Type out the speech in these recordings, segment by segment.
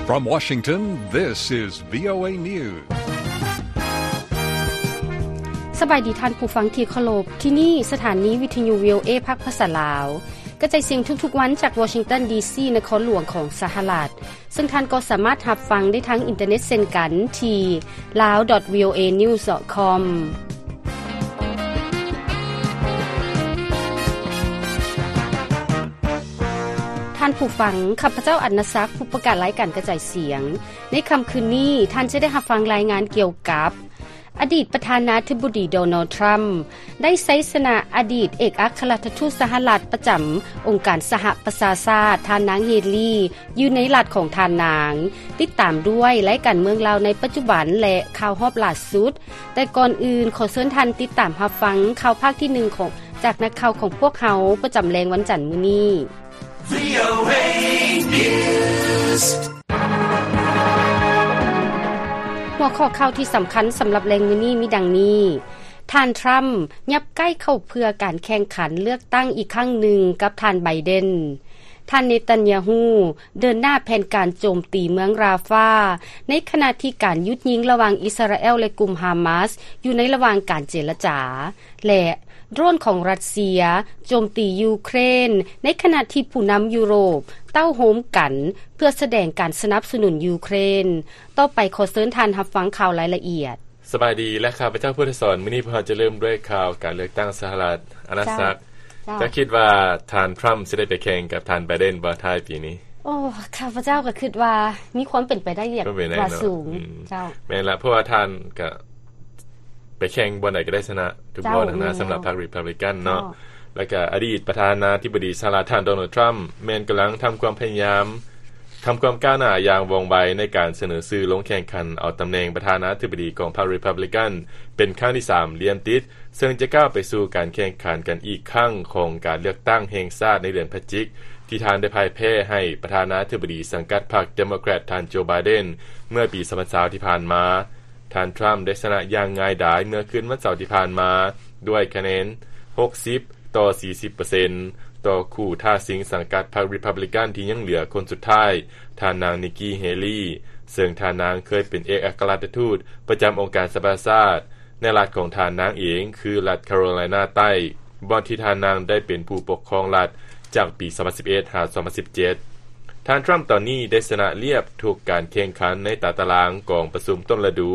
From Washington, this is VOA News. ສະບາຍດີທ່ານຜູ້ຟັງທີ່ເຄົາລົບ, ທີ່ນີ້ສະຖານີວິທະຍຸ VOA ພາກພາສາລາວ ກະຈາຍສຽງທຸກໆວັນຈາກວໍຊິງຕັນ ດີຊີ ນະຄອນຫຼວງຂອງສະຫະລັດ, ເຊິ່ງທ່ານກໍສາມາດຮັບຟັງໄດ້ທາງອິນເຕີເນັດເຊັ່ນກັນທີ່ lawvoanews com. ທ່ານຜູ້ຟັງ, ຂ້າພະເຈົ້າ ອັນນະສັກ, ຜູ້ປະກາດລາຍການກະຈາຍສຽງ. ໃນຄ່ຳຄືນນີ້, ທ່ານຈະໄດ້ຮັບຟັງລາຍງານກ່ຽວກັບ ອະດີດປະທານາທິບໍດີ ໂດນັລ ທຣຳ ໄດ້ໄຊຊະນະອະດີດເອກອັກຄະລັດຖະທູດສະຫະລັດປະຈຳອົງການສະຫະປະຊາຊາດ ທ່ານນາງ ເຮລີ ຢູ່ໃນລັດຂອງທ່ານນາງ. ຕິດຕາມດ້ວຍລາຍການເມືອງລາວໃນປັດຈຸບັນ ແລະ ຂ່າວຮອບຫຼ້າສຸດ. ແຕ່ກ່ອນອື່ນ, ຂໍເຊີນທ່ານຕິດຕາມຮັບຟັງຂ່າວພາກທີໜຶ່ງຂອງ, ຈາກນັກຂ່າວຂອງພວກເຮົາປະຈຳແລງວັນຈັນມື້ນີ້. VOA News. ຫົວຂໍ້ຂ່າວທີ່ສຳຄັນສຳລັບແລງມື້ນີ້ມີດັ່ງນີ້: ທ່ານທຣຳ ຫຍັບໃກ້ເຂົ້າເພື່ອການແຂ່ງຂັນເລືອກຕັ້ງອີກຄັ້ງໜຶ່ງກັບທ່ານໄບເດັນ. ທ່ານເນຕັນຍາຮູ້ ເດີນໜ້າແຜນການໂຈມຕີເມືອງຣາຟາ ໃນຂະນະທີ່ການຢຸດຍິງລະຫວ່າງອິດສະຣາແອລ ແລະ ກຸ່ມຮາມາສ ຢູ່ໃນລະຫວ່າງການເຈລະຈາ ແລະ ໂດຣນຂອງຣັດເຊຍໂຈມຕີຢູເຄຣນ ໃນຂະນະທີ່ຜູ້ນຳຢູໂຣບເຕົ້າໂຮມກັນເພື່ອສະແດງການສະໜັບສະໜູນຢູເຄຣນ. ຕໍ່ໄປຂໍເຊີນທ່ານຮັບຟັງຂ່າວລາຍລະອຽດ. ສະບາຍດີ ແລະ ຂ້າພະເຈົ້າ ພຸດທະສອນ. ມື້ນີ້ພວກເຮົາຈະເລີ່ມດ້ວຍຂ່າວການເລືອກຕັ້ງສະຫະລັດ. ອານາສັກ, ເຈົ້າ ເຈົ້າ ເຈົ້າຄິດວ່າທ່ານທຣຳຊິໄດ້ໄປແຂ່ງກັບທ່ານໄບເດັນບໍ່ທ້າຍປີນີ້? ໂອ້ ຂ້າພະເຈົ້າກໍຄິດວ່າມີຄວາມເປັນໄປໄດ້ຢ່າງ ເປັນໄປໄດ້ ວ່າ ເນາະ ສູງ. ອືມ ເຈົ້າ ແມ່ນລະ, ເພາະວ່າທ່ານກໍໄປແຂ່ງບ່ອນໃດກໍໄດ້ຊະນະທຸກ ເຈົ້າ ບ່ອນຫັ້ນນະ ແມ່ນ ສຳລັບພັກຣີພັບບລິກັນເນາະ. ເຈົ້າ ແລ້ວກໍອະດີດປະທານາທິບໍດີສະຫະລັດ ທ່ານ ໂດນັລ ທຣຳ ແມ່ນກຳລັງທຳຄວາມພະຍາຍາມ ທຳຄວາມກ້າວໜ້າຢ່າງວ່ອງໄວໃນການສະເໜີຊື່ລົງແຂ່ງຂັນເອົາຕຳແໜ່ງປະທານາທິບໍດີຂອງພັກຣີພັບບລິກັນເປັນຄັ້ງທີສາມລຽນຕິດ, ເຊິ່ງຈະກ້າວໄປສູ່ການແຂ່ງຂັນກັນອີກຄັ້ງຂອງການເລືອກຕັ້ງແຫ່ງຊາດໃນເດືອນພະຈິກ ທີ່ທ່ານໄດ້ພ່າຍແພ້ໃຫ້ປະທານາທິບໍດີສັງກັດພັກເດໂມແຄຣດ ທ່ານ ໂຈ ໄບເດັນ ເມື່ອປີສອງພັນຊາວທີ່ຜ່ານມາ. ທ່ານທຣຳໄດ້ຊະນະຢ່າງງ່າຍດາຍເມື່ອຄືນວັນເສົາທີ່ຜ່ານມາ ດ້ວຍຄະແນນຫົກສິບຕໍ່ສີ່ສິບເປີເຊັນ ຕໍ່ຄູ່ທ້າຊິງສັງກັດພັກຣີພັບບລິກັນທີ່ຍັງເຫຼືອຄົນສຸດທ້າຍ, ທ່ານນາງ ນິກກີ້ ເຮລີ, ເຊິ່ງທ່ານນາງເຄີຍເປັນເອກອັກຄະລັດຖະທູດປະຈຳອົງການສະຫະປະຊາຊາດ ໃນລັດຂອງທ່ານນາງເອງ ຄືລັດຄາໂຣໄລນາໃຕ້, ບ່ອນທີ່ທ່ານນາງໄດ້ເປັນຜູ້ປົກຄອງລັດຈາກປີສອງພັນສິບເອັດ ຫາ ສອງພັນສິບເຈັດ. ທ່ານທຣຳຕອນນີ້ໄດ້ຊະນະລຽບທຸກການແຂ່ງຂັນໃນຕາຕະລາງກອງປະຊຸມຕົ້ນລະດູ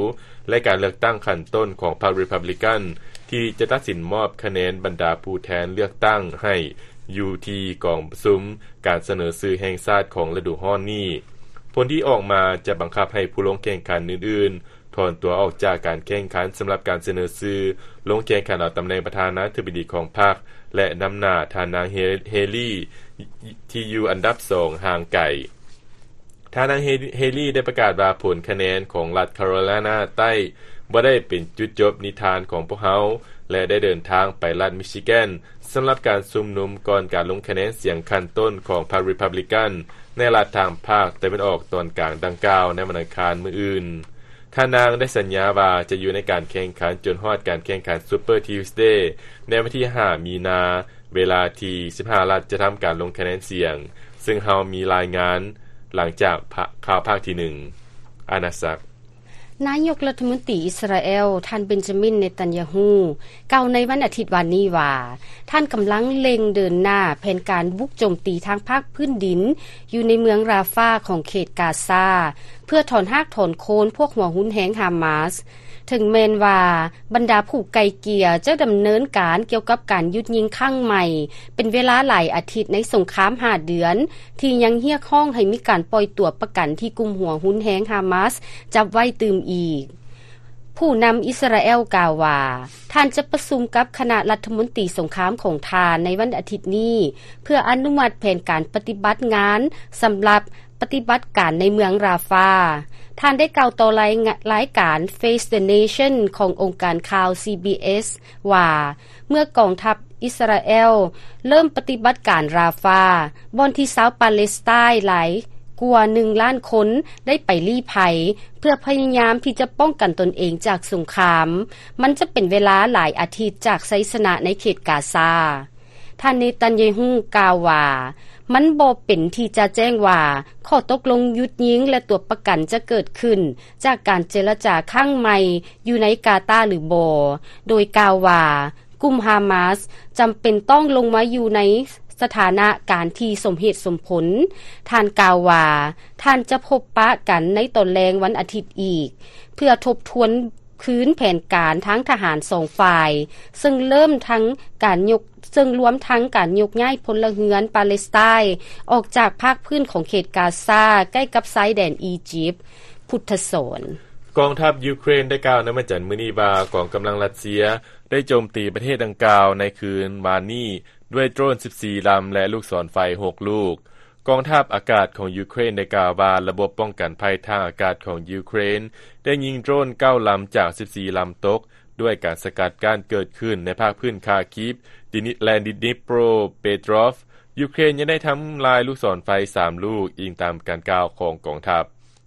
ແລະ ການເລືອກຕັ້ງຂັ້ນຕົ້ນຂອງພັກຣີພັບບລິກັນ ທີ່ຈະຕັດສິນມອບຄະແນນບັນດາຜູ້ແທນເລືອກຕັ້ງໃຫ້ຢູ່ທີ່ກອງປະຊຸມການສະເໜີຊື່ແຫ່ງຊາດຂອງລະດູຮ້ອນນີ້. ຜົນທີ່ອອກມາຈະບັງຄັບໃຫ້ຜູ້ລົງແຂ່ງຂັນອື່ນໆ ຖອນຕົວອອກຈາກການແຂ່ງຂັນສຳລັບການສະເໜີຊື່ລົງແຂ່ງຂັນເອົາຕຳແໜ່ງປະທານາທິບໍດີຂອງພັກ ແລະ ນຳໜ້າທ່ານນາງ ເຮ ເຮລີ ທີ່ຢູ່ອັນດັບສອງຫ່າງໄກ. ທ່ານນາງ ເຮ ເຮລີ ໄດ້ປະກາດວ່າຜົນຄະແນນຂອງລັດຄາໂຣໄລນາໃຕ້ບໍ່ໄດ້ເປັນຈຸດຈົບນິທານຂອງພວກເຮົາ ແລະ ໄດ້ເດີນທາງໄປລັດມິຊິແກນ ສຳລັບການຊຸມນຸມກ່ອນການລົງຄະແນນສຽງຂັ້ນຕົ້ນຂອງພັກຣີພັບບລິກັນ ໃນລັດທາງພາກຕາເວັນອອກຕອນກາງດັ່ງກ່າວໃນວັນອັງຄານມື້ອື່ນ. ທ່ານນາງໄດ້ສັນຍາວ່າຈະຢູ່ໃນການແຂ່ງຂັນຈົນຮອດການແຂ່ງຂັນ Super Tuesday ໃນວັນທີຫ້າ ມີນາ ເວລາທີ່ສິບຫ້າລັດຈະທຳການລົງຄະແນນສຽງ, ເຊິ່ງເຮົາມີລາຍງານຫຼັງຈາກພະ-, ຂ່າວພາກທີໜຶ່ງ. ອານາສັກ. ນາຍົກລັດຖະມົນຕີອິດສະຣາແອລ ທ່ານ ເບັນຈາມິນ ເນຕັນຍາຮູ້ ກ່າວໃນວັນອາທິດວານນີ້ວ່າ ທ່ານກຳລັງເລັ່ງເດີນໜ້າແຜນການບຸກໂຈມຕີທາງພາກພື້ນດິນ ຢູ່ໃນເມືອງຣາຟາຂອງເຂດກາຊາ ເພື່ອຖອນຮາກຖອນໂຄນພວກຫົວຮຸນແຮງຮາມາສ. ເຖິງແມ່ນວ່າບັນດາຜູ້ໄກ່ເກ່ຍຈະດຳເນີນການກ່ຽວກັບການຢຸດຍິງຄັ້ງໃໝ່ເປັນເວລາຫຼາຍອາທິດໃນສົງຄາມຫ້າເດືອນ ທີ່ຍັງຮຽກຮ້ອງໃຫ້ມີການປ່ອຍຕົວປະກັນທີ່ກຸ່ມຫົວຮຸນແຮງຮາມາສຈັບໄວ້ຕື່ມອີກ. ຜູ້ນຳອິດສະຣາແອລກ່າວວ່າ ທ່ານຈະປະຊຸມກັບຄະນະລັດຖະມົນຕີສົງຄາມຂອງທ່ານໃນວັນອາທິດນີ້ ເພື່ອອະນຸມັດແຜນການປະຕິບັດງານສຳລັບປະຕິບັດການໃນເມືອງຣາຟາ. ທ່ານໄດ້ກ່າວຕໍ່ລາຍງະ-, ລາຍການ Face the Nation ຂອງອົງການຂ່າວ ຊີບີເອສ ວ່າ ເມື່ອກອງທັບອິດສະຣາແອລເລີ່ມປະຕິບັດການຣາຟາ, ບ່ອນທີ່ຊາວປາເລສໄຕນຫຼາຍກວ່າໜຶ່ງລ້ານຄົນໄດ້ໄປລີ້ໄພ ເພື່ອພະຍາຍາມທີ່ຈະປ້ອງກັນຕົນເອງຈາກສົງຄາມ, ມັນຈະເປັນເວລາຫຼາຍອາທິດຈາກໄຊຊະນະໃນເຂດກາຊາ. ທ່ານເນຕັນຍາຮູ້ກ່າວວ່າ, ມັນບໍ່ເປັນທີ່ຈະແຈ້ງວ່າ ຂໍ້ຕົກລົງຢຸດຍິງ ແລະ ຕົວະປະກັນຈະເກີດຂຶ້ນ ຈາກການເຈລະຈາຄັ້ງໃໝ່ ຢູ່ໃນກາຕາ ຫຼື ບໍ່, ໂດຍກ່າວວ່າ ກຸ່ມຮາມາສຈຳເປັນຕ້ອງລົງມາຢູ່ໃນສະຖານະການທີ່ສົມເຫດສົມຜົນ. ທ່ານກ່າວວ່າ ທ່ານຈະພົບປະກັນໃນຕອນແລງວັນອາທິດອີກ ເພື່ອທົບທວນຄືນແຜນການທາງທະຫານສອງຝ່າຍ ເຊິ່ງເລີ່ມທັງການຍົກ ເຊິ່ງລວມທັງການຍົກຍ້າຍພົນລະເຮືອນປາເລສໄຕ ອອກຈາກພາກພື້ນຂອງເຂດກາຊາ ໃກ້ກັບຊາຍແດນອີຢິບ. ພຸດທະສອນ. ກອງທັບຢູເຄຣນໄດ້ກ່າວໃນວັນຈັນມື້ນີ້ວ່າ ກອງກຳລັງຣັດເຊຍໄດ້ໂຈມຕີປະເທດດັ່ງກ່າວໃນຄືນວານນີ້ດ້ວຍໂດຣນສິບສີ່ລຳ ແລະ ລູກສອນໄຟຫົກລູກ. ກອງທັບອາກາດຂອງຢູເຄຣນໄດ້ກ່າວວ່າ ລະບົບປ້ອງກັນໄພທາງອາກາດຂອງຢູເຄຣນໄດ້ຍິງໂດຣນເກົ້າລຳຈາກສິບສີ່ລຳຕົກ ດ້ວຍການສະກັດກັ້ນເກີດຂຶ້ນໃນພາກພື້ນຄາຄີບ ດິນິ ແລະ ດິນິໂປຣເປໂຕຣອຟ. ຢູເຄຣນຍັງໄດ້ທຳລາຍລູກສອນໄຟສາມລູກ, ອີງຕາມການກ່າວຂອງກອງທັບ.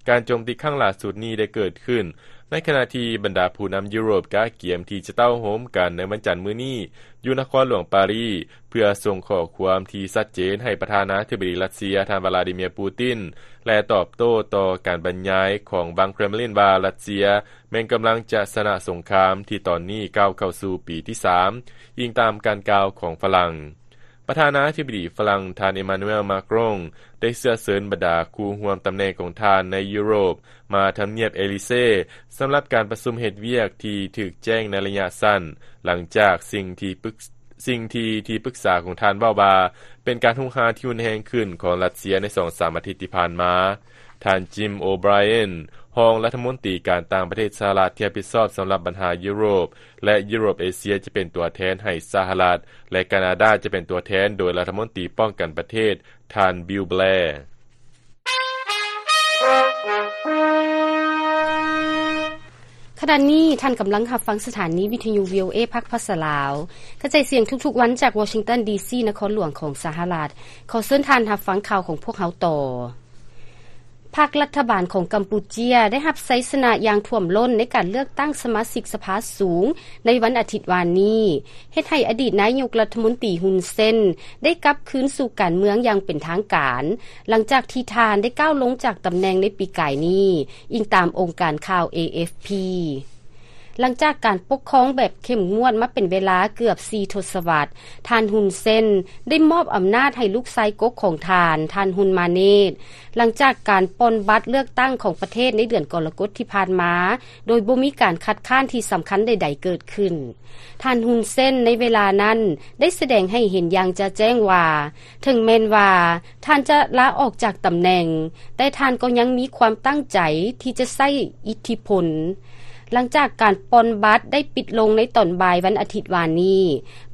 ການໂຈມຕີຄັ້ງຫຼ້າສຸດນີ້ໄດ້ເກີດຂຶ້ນໃນຂະນະທີ່ບັນດາຜູ້ນຳຢູໂຣບກະກຽມທີ່ຈະເຕົ້າໂຮມກັນໃນວັນຈັນມື້ນີ້ຢູ່ນະຄອນຫຼວງປາຣີ ເພື່ອສົ່ງຂໍ້ຄວາມທີ່ຊັດເຈນໃຫ້ປະທານາທິບໍດີຣັດເຊຍ ທ່ານ ວລາດີເມຍ ປູຕິນ ແລະ ຕອບໂຕ້ຕໍ່ການບັນຍາຍຂອງວັງເຄຣມລິນວ່າ ຣັດເຊຍແມ່ນກຳລັງຈະຊະນະສົງຄາມທີ່ຕອນນີ້ກ້າວເຂົ້າສູ່ປີທີສາມ, ອີງຕາມການກ່າວຂອງຝຣັ່ງ. ປະທານາທິບໍດີຝຣັ່ງ ທ່ານ ເອມານູເອລ ມາກຣອງ ໄດ້ເຊື້ອເຊີນບັນດາຄູ່ຮ່ວມຕຳແໜ່ງຂອງທ່ານໃນຢູໂຣບມາທຳນຽບເອລີເຊ ສຳລັບການປະຊຸມເຮັດວຽກທີ່ຖືກແຈ້ງໃນໄລຍະສັ້ນ ຫຼັງຈາກສິ່ງທີ່ປຶກ ສິ່ງທີ່ທີ່ປຶກສາຂອງທ່ານເວົ້າວ່າ ເປັນການຮຸກຮານທີ່ຮຸນແຮງຂຶ້ນຂອງຣັດເຊຍໃນສອງສາມອາທິດທີ່ຜ່ານມາ. ທ່ານ ຈິມ ໂອໄບຣເອນ ຮອງລັດຖະມົນຕີການຕ່າງປະເທດສະຫະລັດທີ່ຮັບຜິດຊອບສຳລັບບັນຫາຢູໂຣບ ແລະ ຢູໂຣບເອເຊຍ ຈະເປັນຕົວແທນໃຫ້ສະຫະລັດ ແລະ ການາດາຈະເປັນຕົວແທນໂດຍລັດຖະມົນຕີປ້ອງກັນປະເທດ ທ່ານ ບິວ ແບລ. ຂະນະນີ້ທ່ານກຳລັງຮັບຟັງສະຖານີວິທະຍຸ ວີໂອເອ ພາກພາສາລາວ ກະຈາຍສຽງທຸກໆວັນຈາກວໍຊິງຕັນ ດີຊີ ນະຄອນຫຼວງຂອງສະຫະລັດ. ຂໍເຊີນທ່ານຮັບຟັງຂ່າວຂອງພວກເຮົາຕໍ່. ພັກລັດຖະບານຂອງກຳປູເຈຍໄດ້ຮັບໄຊຊະນະຢ່າງຖ້ວມລົ້ນໃນການເລືອກຕັ້ງສະມາຊິກສະພາສູງໃນວັນອາທິດວານນີ້, ເຮັດໃຫ້ອະດີດນາຍົກລັດຖະມົນຕີ ຮຸນເຊນ ໄດ້ກັບຄືນສູ່ການເມືອງຢ່າງເປັນທາງການ ຫຼັງຈາກທີ່ທ່ານໄດ້ກ້າວລົງຈາກຕຳແໜ່ງໃນປີກາຍນີ້, ອີງຕາມອົງການຂ່າວ ເອ ເອັຟ ພີ. ຫຼັງຈາກການປົກຄອງແບບເຂັ້ມງວດມາເປັນເວລາເກືອບສີ່ທົດສະວັດ, ທ່ານ ຮຸນເຊນ ໄດ້ມອບອຳນາດໃຫ້ລູກຊາຍກົກຂອງທ່ານ, ທ່ານ ຮຸນມາເນດ, ຫຼັງຈາກການປ່ອນບັດເລືອກຕັ້ງຂອງປະເທດໃນເດືອນກໍລະກົດທີ່ຜ່ານມາ, ໂດຍບໍ່ມີການຄັດຄ້ານທີ່ສຳຄັນໃດໆເກີດຂຶ້ນ. ທ່ານ ຮຸນເຊນ ໃນເວລານັ້ນ ໄດ້ສະແດງໃຫ້ເຫັນຢ່າງຈະແຈ້ງວ່າ ເຖິງແມ່ນວ່າທ່ານຈະລາອອກຈາກຕຳແໜ່ງ, ແຕ່ທ່ານກໍຍັງມີຄວາມຕັ້ງໃຈທີ່ຈະໃຊ້ອິດທິພົນ. ຫຼັງຈາກການປ່ອນບັດໄດ້ປິດລົງໃນຕອນບ່າຍວັນອາທິດວານນີ້,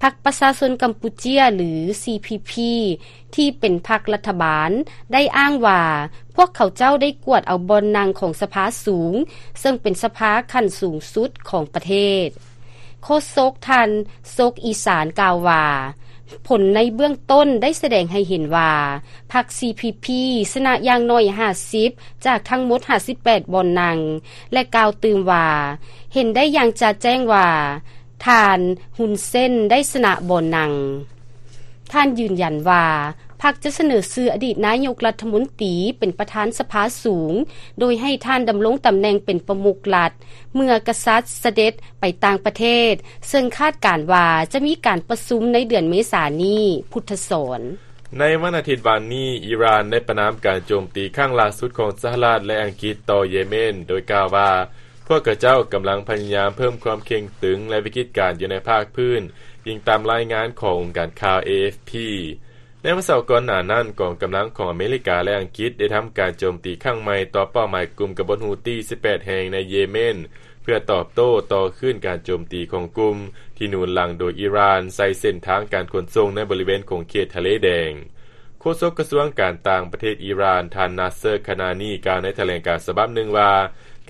ພັກປະຊາຊົນກຳປູເຈຍ ຫຼື ຊີ ພີ ພີ ທີ່ເປັນພັກລັດຖະບານ ໄດ້ອ້າງວ່າ ພວກເຂົາເຈົ້າໄດ້ກວດເອົາບ່ອນນັ່ງຂອງສະພາສູງ, ເຊິ່ງເປັນສະພາຂັ້ນສູງສຸດຂອງປະເທດ. ໂຄສົກທ່ານ ສົກອີສານ ກ່າວວ່າ ຜົນໃນເບື້ອງຕົ້ນໄດ້ສະແດງໃຫ້ເຫັນວ່າ ພັກ ຊີ ພີ ພີ ຊະນະຢ່າງໜ້ອຍຫ້າສິບ ຈາກທັງໝົດຫ້າສິບແປດບ່ອນນັ່ງ ແລະ ກ່າວຕື່ມວ່າ ເຫັນໄດ້ຢ່າງຈະແຈ້ງວ່າ ທ່ານ ຮຸນເຊນ ໄດ້ຊະນະບ່ອນນັ່ງ. ທ່ານຢືນຢັນວ່າ ພັກຈະສະເໜີຊື່ອະດີດນາຍົກລັດຖະມົນຕີເປັນປະທານສະພາສູງ, ໂດຍໃຫ້ທ່ານດຳລົງຕຳແໜ່ງເປັນປະມຸກລັດ ເມື່ອກະສັດສະເດັດໄປຕ່າງປະເທດ, ເຊິ່ງຄາດການວ່າຈະມີການປະຊຸມໃນເດືອນເມສານີ້. ພຸດທະສອນ. ໃນວັນອາທິດວານນີ້, ອີຣານໄດ້ປະນາມການໂຈມຕີຄັ້ງລ່າສຸດຂອງສະຫະລັດ ແລະ ອັງກິດຕໍ່ເຢເມັນ, ໂດຍກ່າວວ່າ ພວກເຂົາເຈົ້າກຳລັງພະຍາຍາມເພີ່ມຄວາມເຄັ່ງຕຶງ ແລະ ວິກິດການຢູ່ໃນພາກພື້ນ, ອີງຕາມລາຍງານຂອງອົງການຂ່າວ ເອ ເອັຟ ພີ. ໃນວັນເສົາກ່ອນໜ້ານັ້ນ, ກອງກຳລັງຂອງອາເມລິກາ ແລະ ອັງກິດໄດ້ທຳການໂຈມຕີຄັ້ງໃໝ່ຕໍ່ເປົ້າໝາຍກຸ່ມກະບົດຮູ້ຕີສິບແປດແຫ່ງໃນເຢເມັນ, ເພື່ອຕອບໂຕ້ຕໍ່ຄືນການໂຈມຕີຂອງກຸ່ມທີ່ໜູນຫຼັງໂດຍອີຣານໃສ່ເສັ້ນທາງການຂົນສົ່ງໃນບໍລິເວນຂົງເຂດທະເລແດງ. ໂຄສົກກະຊວງການຕ່າງປະເທດອີຣານ ທ່ານ ນາເຊີ ຄານານີ ກ່າວໃນຖະແຫຼງການສະບັບໜຶ່ງວ່າ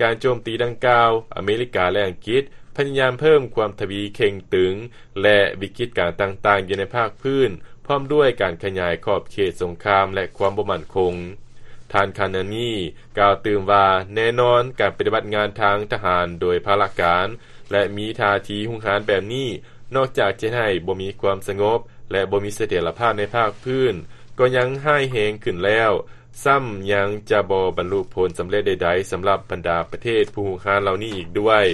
ການໂຈມຕີດັ່ງກ່າວ, ອາເມລິກາ ແລະ ອັງກິດພະຍາຍາມເພີ່ມຄວາມທະວີເຄັ່ງຕຶງ ແລະ ວິກິດການຕ່າງໆຢູ່ໃນພາກພື້ນ, ພ້ອມດ້ວຍການຂະຫຍາຍຂອບເຂດສົງຄາມ ແລະ ຄວາມບໍ່ໝັ້ນຄົງ. ທ່ານ ຄານານີ ກ່າວຕື່ມວ່າ ແນ່ນອນ, ການປະຕິບັດງານທາງທະຫານໂດຍພາລະການ ແລະ ມີທ່າທີຮຸກຮານແບບນີ້, ນອກຈາກຈະເຮັດໃຫ້ບໍ່ມີຄວາມສະຫງົບ ແລະ ບໍ່ມີສະຖຽນລະພາບໃນພາກພື້ນ, ກໍຍັງຮ້າຍແຮງຂຶ້ນແລ້ວ, ຊ້ຳຍັງຈະບໍ່ບັນລຸຜົນສຳເລັດໃດໆ ສຳລັບບັນດາປະເທດຜູ້ຮຸກຮານເຫຼົ່ານີ້ອີກດ້ວຍ.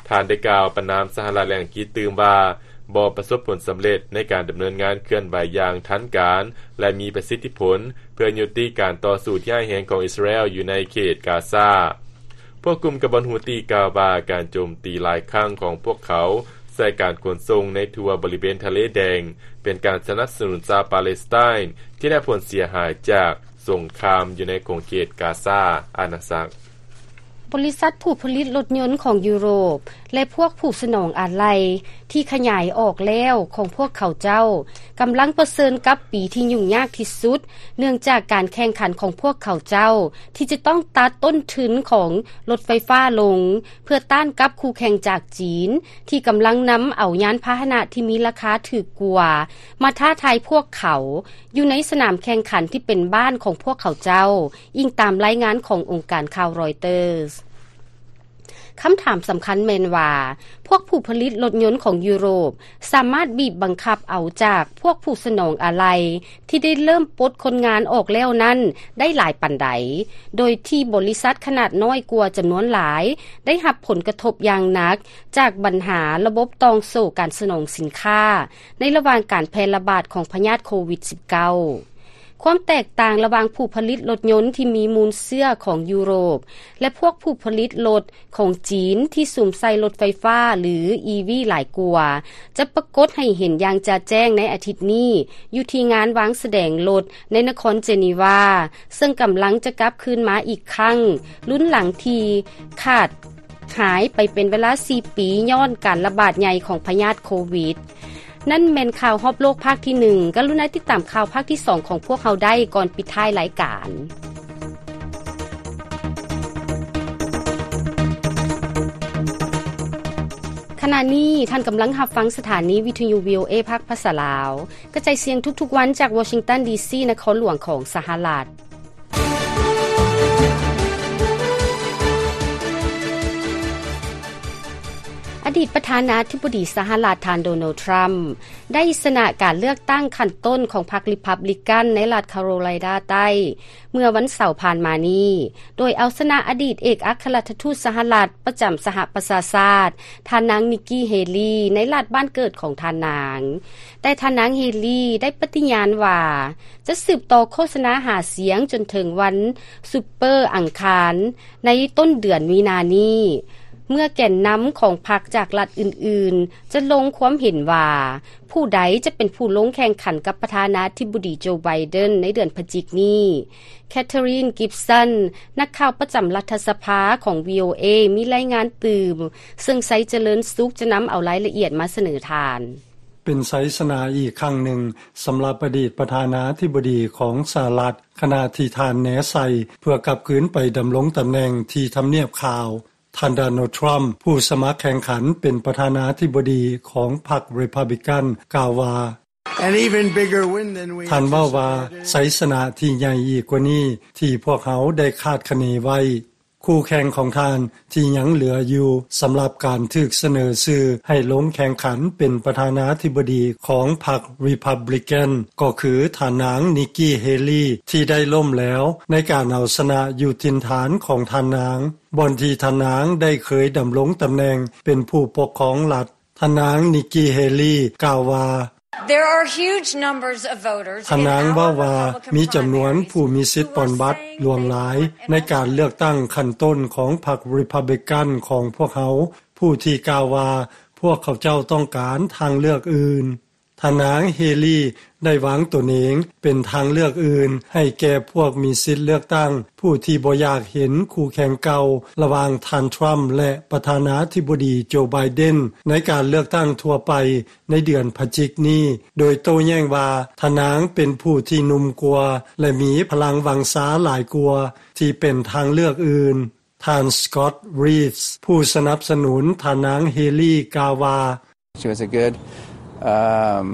ທ່ານໄດ້ກ່າວປະນາມສະຫະລັດ ແລະ ອັງກິດຕື່ມວ່າ ບໍ່ປະສົບຜົນສຳເລັດໃນການດຳເນີນງານເຄື່ອນໄຫວຢ່າງທັນການ ແລະ ມີປະສິດທິຜົນ ເພື່ອຍຸຕິການຕໍ່ສູ້ທີ່ຮ້າຍແຮງຂອງອິດສະຣາແອລຢູ່ໃນເຂດກາຊາ. ພວກກຸ່ມກະບັດຫູຕີກ່າວວ່າ ການໂຈມຕີຫຼາຍຄັ້ງຂອງພວກເຂົາໃສ່ການຂົນສົ່ງໃນທົ່ວບໍລິເວນທະເລແດງ ເປັນການສະໜັບສະໜູນຊາວປາເລສໄຕນທີ່ໄດ້ຮັບຜົນເສຍຫາຍຈາກສົງຄາມຢູ່ໃນຂົງເຂດກາຊາອານາຈັກ. ບໍລິສັດຜູ້ຜະລິດລົດຍົນຂອງຢູໂຣບ ແລະ ພວກຜູ້ສະໜອງອາໄຫຼ່ທີ່ຂະຫຍາຍອອກແລ້ວຂອງພວກເຂົາເຈົ້າ ກຳລັງປະເຊີນກັບປີທີ່ຫຍຸ້ງຍາກທີ່ສຸດ ເນື່ອງຈາກການແຂ່ງຂັນຂອງພວກເຂົາເຈົ້າ ທີ່ຈະຕ້ອງຕັດຕົ້ນທຶນຂອງລົດໄຟຟ້າລົງ ເພື່ອຕ້ານກັບຄູ່ແຂ່ງຈາກຈີນ ທີ່ກຳລັງນຳເອົາຍານພາຫະນະທີ່ມີລາຄາຖືກກວ່າ ມາທ້າທາຍພວກເຂົາ ຢູ່ໃນສະໜາມແຂ່ງຂັນທີ່ເປັນບ້ານຂອງພວກເຂົາເຈົ້າ, ອີງຕາມລາຍງານຂອງອົງການຂ່າວຣອຍເຕີສ. ຄຳຖາມສຳຄັນແມ່ນວ່າ ພວກຜູ້ຜະລິດລົດຍົນຂອງຢູໂຣບ ສາມາດບີບບັງຄັບເອົາຈາກພວກຜູ້ສະໜອງອາໄຫຼ່ທີ່ໄດ້ເລີ່ມປົດຄົນງານອອກແລ້ວນັ້ນໄດ້ຫຼາຍປານໃດ, ໂດຍທີ່ບໍລິສັດຂະໜາດນ້ອຍກວ່າຈຳນວນຫຼາຍ ໄດ້ຮັບຜົນກະທົບຢ່າງໜັກຈາກບັນຫາລະບົບຕ່ອງໂສ້ການສະໜອງສິນຄ້າ ໃນລະຫວ່າງການແຜ່ລະບາດຂອງພະຍາດໂຄວິດສິບເກົ້າ. ຄວາມແຕກຕ່າງລະຫວ່າງຜູ້ຜະລິດລົດຍົນທີ່ມີມູນເຊື້ອຂອງຢູໂຣບ ແລະ ພວກຜູ້ຜະລິດລົດຂອງຈີນທີ່ສຸມໃສ່ລົດໄຟຟ້າ ຫຼື ອີ ວີ ຫຼາຍກວ່າ ຈະປາກົດໃຫ້ເຫັນຢ່າງຈະແຈ້ງໃນອາທິດນີ້ ຢູ່ທີ່ງານວາງສະແດງລົດໃນນະຄອນເຈນີວາ ເຊິ່ງກຳລັງຈະກັບຄືນມາອີກຄັ້ງ ລຸ້ນຫຼັງທີ່ຂາດ ຫາຍໄປເປັນເວລາສີ່ປີ ຍ້ອນການລະບາດໃຫຍ່ຂອງພະຍາດໂຄວິດ. ນັ້ນແມ່ນຂ່າວຮອບໂລກພາກທີໜຶ່ງ. ກະລຸນາຕິດຕາມຂ່າວພາກທີສອງຂອງພວກເຮົາໄດ້ກ່ອນປິດທ້າຍລາຍການ. ຂະນະນີ້ທ່ານກຳລັງຮັບຟັງສະຖານີວິທະຍຸ ວີ ໂອ ເອ ພາກພາສາລາວ ກະຈາຍສຽງທຸກໆວັນຈາກວໍຊິງຕັນ ດີ ຊີ ນະຄອນຫຼວງຂອງສະຫະລັດ. ອະດີດປະທານາທິບໍດີສະຫະລັດ ທ່ານ ໂດນັລ ທຣຳ ໄດ້ຊະນະການເລືອກຕັ້ງຂັ້ນຕົ້ນຂອງພັກ ຣີພັບບລິກັນ ໃນລັດຄາໂຣໄລນາໃຕ້ ເມື່ອວັນເສົາຜ່ານມານີ້ ໂດຍເອົາຊະນະອະດີດເອກອັກຄະລັດຖະທູດສະຫະລັດປະຈຳສະຫະປະຊາຊາດ ທ່ານນາງ ນິກກີ ເຮລີ ໃນລັດບ້ານເກີດຂອງທ່ານນາງ. ແຕ່ທ່ານນາງ ເຮລີ ໄດ້ປະຕິຍານວ່າ ຈະສືບຕໍ່ໂຄສະນາຫາສຽງຈົນເຖິງວັນຊຸບເປີອັງຄານໃນຕົ້ນເດືອນມີນານີ້ ເມື່ອແກນນຳຂອງພັກຈາກລັດອື່ນໆ ຈະລົງຄວາມເຫັນວ່າ ຜູ້ໃດຈະເປັນຜູ້ລົງແຂ່ງຂັນກັບປະທານາທິບໍດີ ໂຈ ໄບເດັນ ໃນເດືອນພະຈິກນີ້. ແຄທຣີນ ກິບສັນ ນັກຂ່າວປະຈຳລັດຖະສະພາຂອງ ວີ ໂອ ເອ ມີລາຍງານຕື່ມ, ເຊິ່ງ ໄຊຈະເລີນສຸກ ຈະນຳເອົາລາຍລະອຽດມາສະເໜີທ່ານ. ເປັນໄຊຊະນະອີກຄັ້ງໜຶ່ງສຳລັບອະດີດປະທານາທິບໍດີຂອງສະຫະລັດ ຂະນະທີ່ທ່ານແນໄຊເພື່ອກັບຄືນໄປດຳລົງຕຳແໜ່ງທີ່ທຳນຽບຂາວ. ທ່ານ ໂດນັລ ທຣຳ ຜູ້ສະໝັກແຂ່ງຂັນເປັນປະທານາທິບໍດີຂອງພັກ ຣີພັບບລິກັນ ກ່າວວ່າ And even bigger win than we ທ່ານເວົ້າວ່າ anticipated. ໄຊຊະນະທີ່ໃຫຍ່ອີກກວ່ານີ້ທີ່ພວກເຮົາໄດ້ຄາດຄະເນໄວ້. ຄູ່ແຂ່ງຂອງທ່ານທີ່ຍັງເຫຼືອຢູ່ສຳລັບການຖືກສະເໜີຊື່ໃຫ້ລົງແຂ່ງຂັນເປັນປະທານາທິບໍດີຂອງພັກ ຣີພັບບລິກັນ ກໍຄືທ່ານນາງ ນິກກີ ເຮລີ ທີ່ໄດ້ລົ້ມແຫຼວໃນການເອົາຊະນະຢູ່ຖິ່ນຖານຂອງທ່ານນາງ ບ່ອນທີ່ທ່ານນາງໄດ້ເຄີຍດຳລົງຕຳແໜ່ງເປັນຜູ້ປົກຄອງລັດ. ທ່ານນາງ ນິກກີ ເຮລີ ກ່າວວ່າ There are huge numbers of voters ທ່ານນາງເວົ້າວ່າ ມີຈຳນວນຜູ້ມີສິດປ່ອນບັດຫຼວງຫຼາຍໃນການເລືອກຕັ້ງຂັ້ນຕົ້ນຂອງພັກ ຣີພັບບລິກັນ ຂອງພວກເຮົາ ຜູ້ທີ່ກ່າວວ່າພວກເຂົາເຈົ້າຕ້ອງການທາງເລືອກອື່ນ. ທ່ານນາງ ເຮລີ ໄດ້ວາງຕົນເອງເປັນທາງເລືອກອື່ນໃຫ້ແກ່ພວກມີສິດເລືອກຕັ້ງ ຜູ້ທີ່ບໍ່ຢາກເຫັນຄູ່ແຂ່ງເກົ່າລະຫວ່າງທ່ານ ທຣຳ ແລະ ປະທານາທິບໍດີ ໂຈ ໄບເດັນ ໃນການເລືອກຕັ້ງທົ່ວໄປໃນເດືອນພະຈິກນີ້ ໂດຍໂຕ້ແຍ້ງວ່າທ່ານນາງເປັນຜູ້ທີ່ໜຸ່ມກວ່າ ແລະ ມີພະລັງວັງຊາຫຼາຍກວ່າທີ່ເປັນທາງເລືອກອື່ນ. ທ່ານ ສະກອດ ຣີດ ຜູ້ສະໜັບສະໜູນທ່ານນາງ ເຮລີ ກ່າວວ່າ She was a good, um,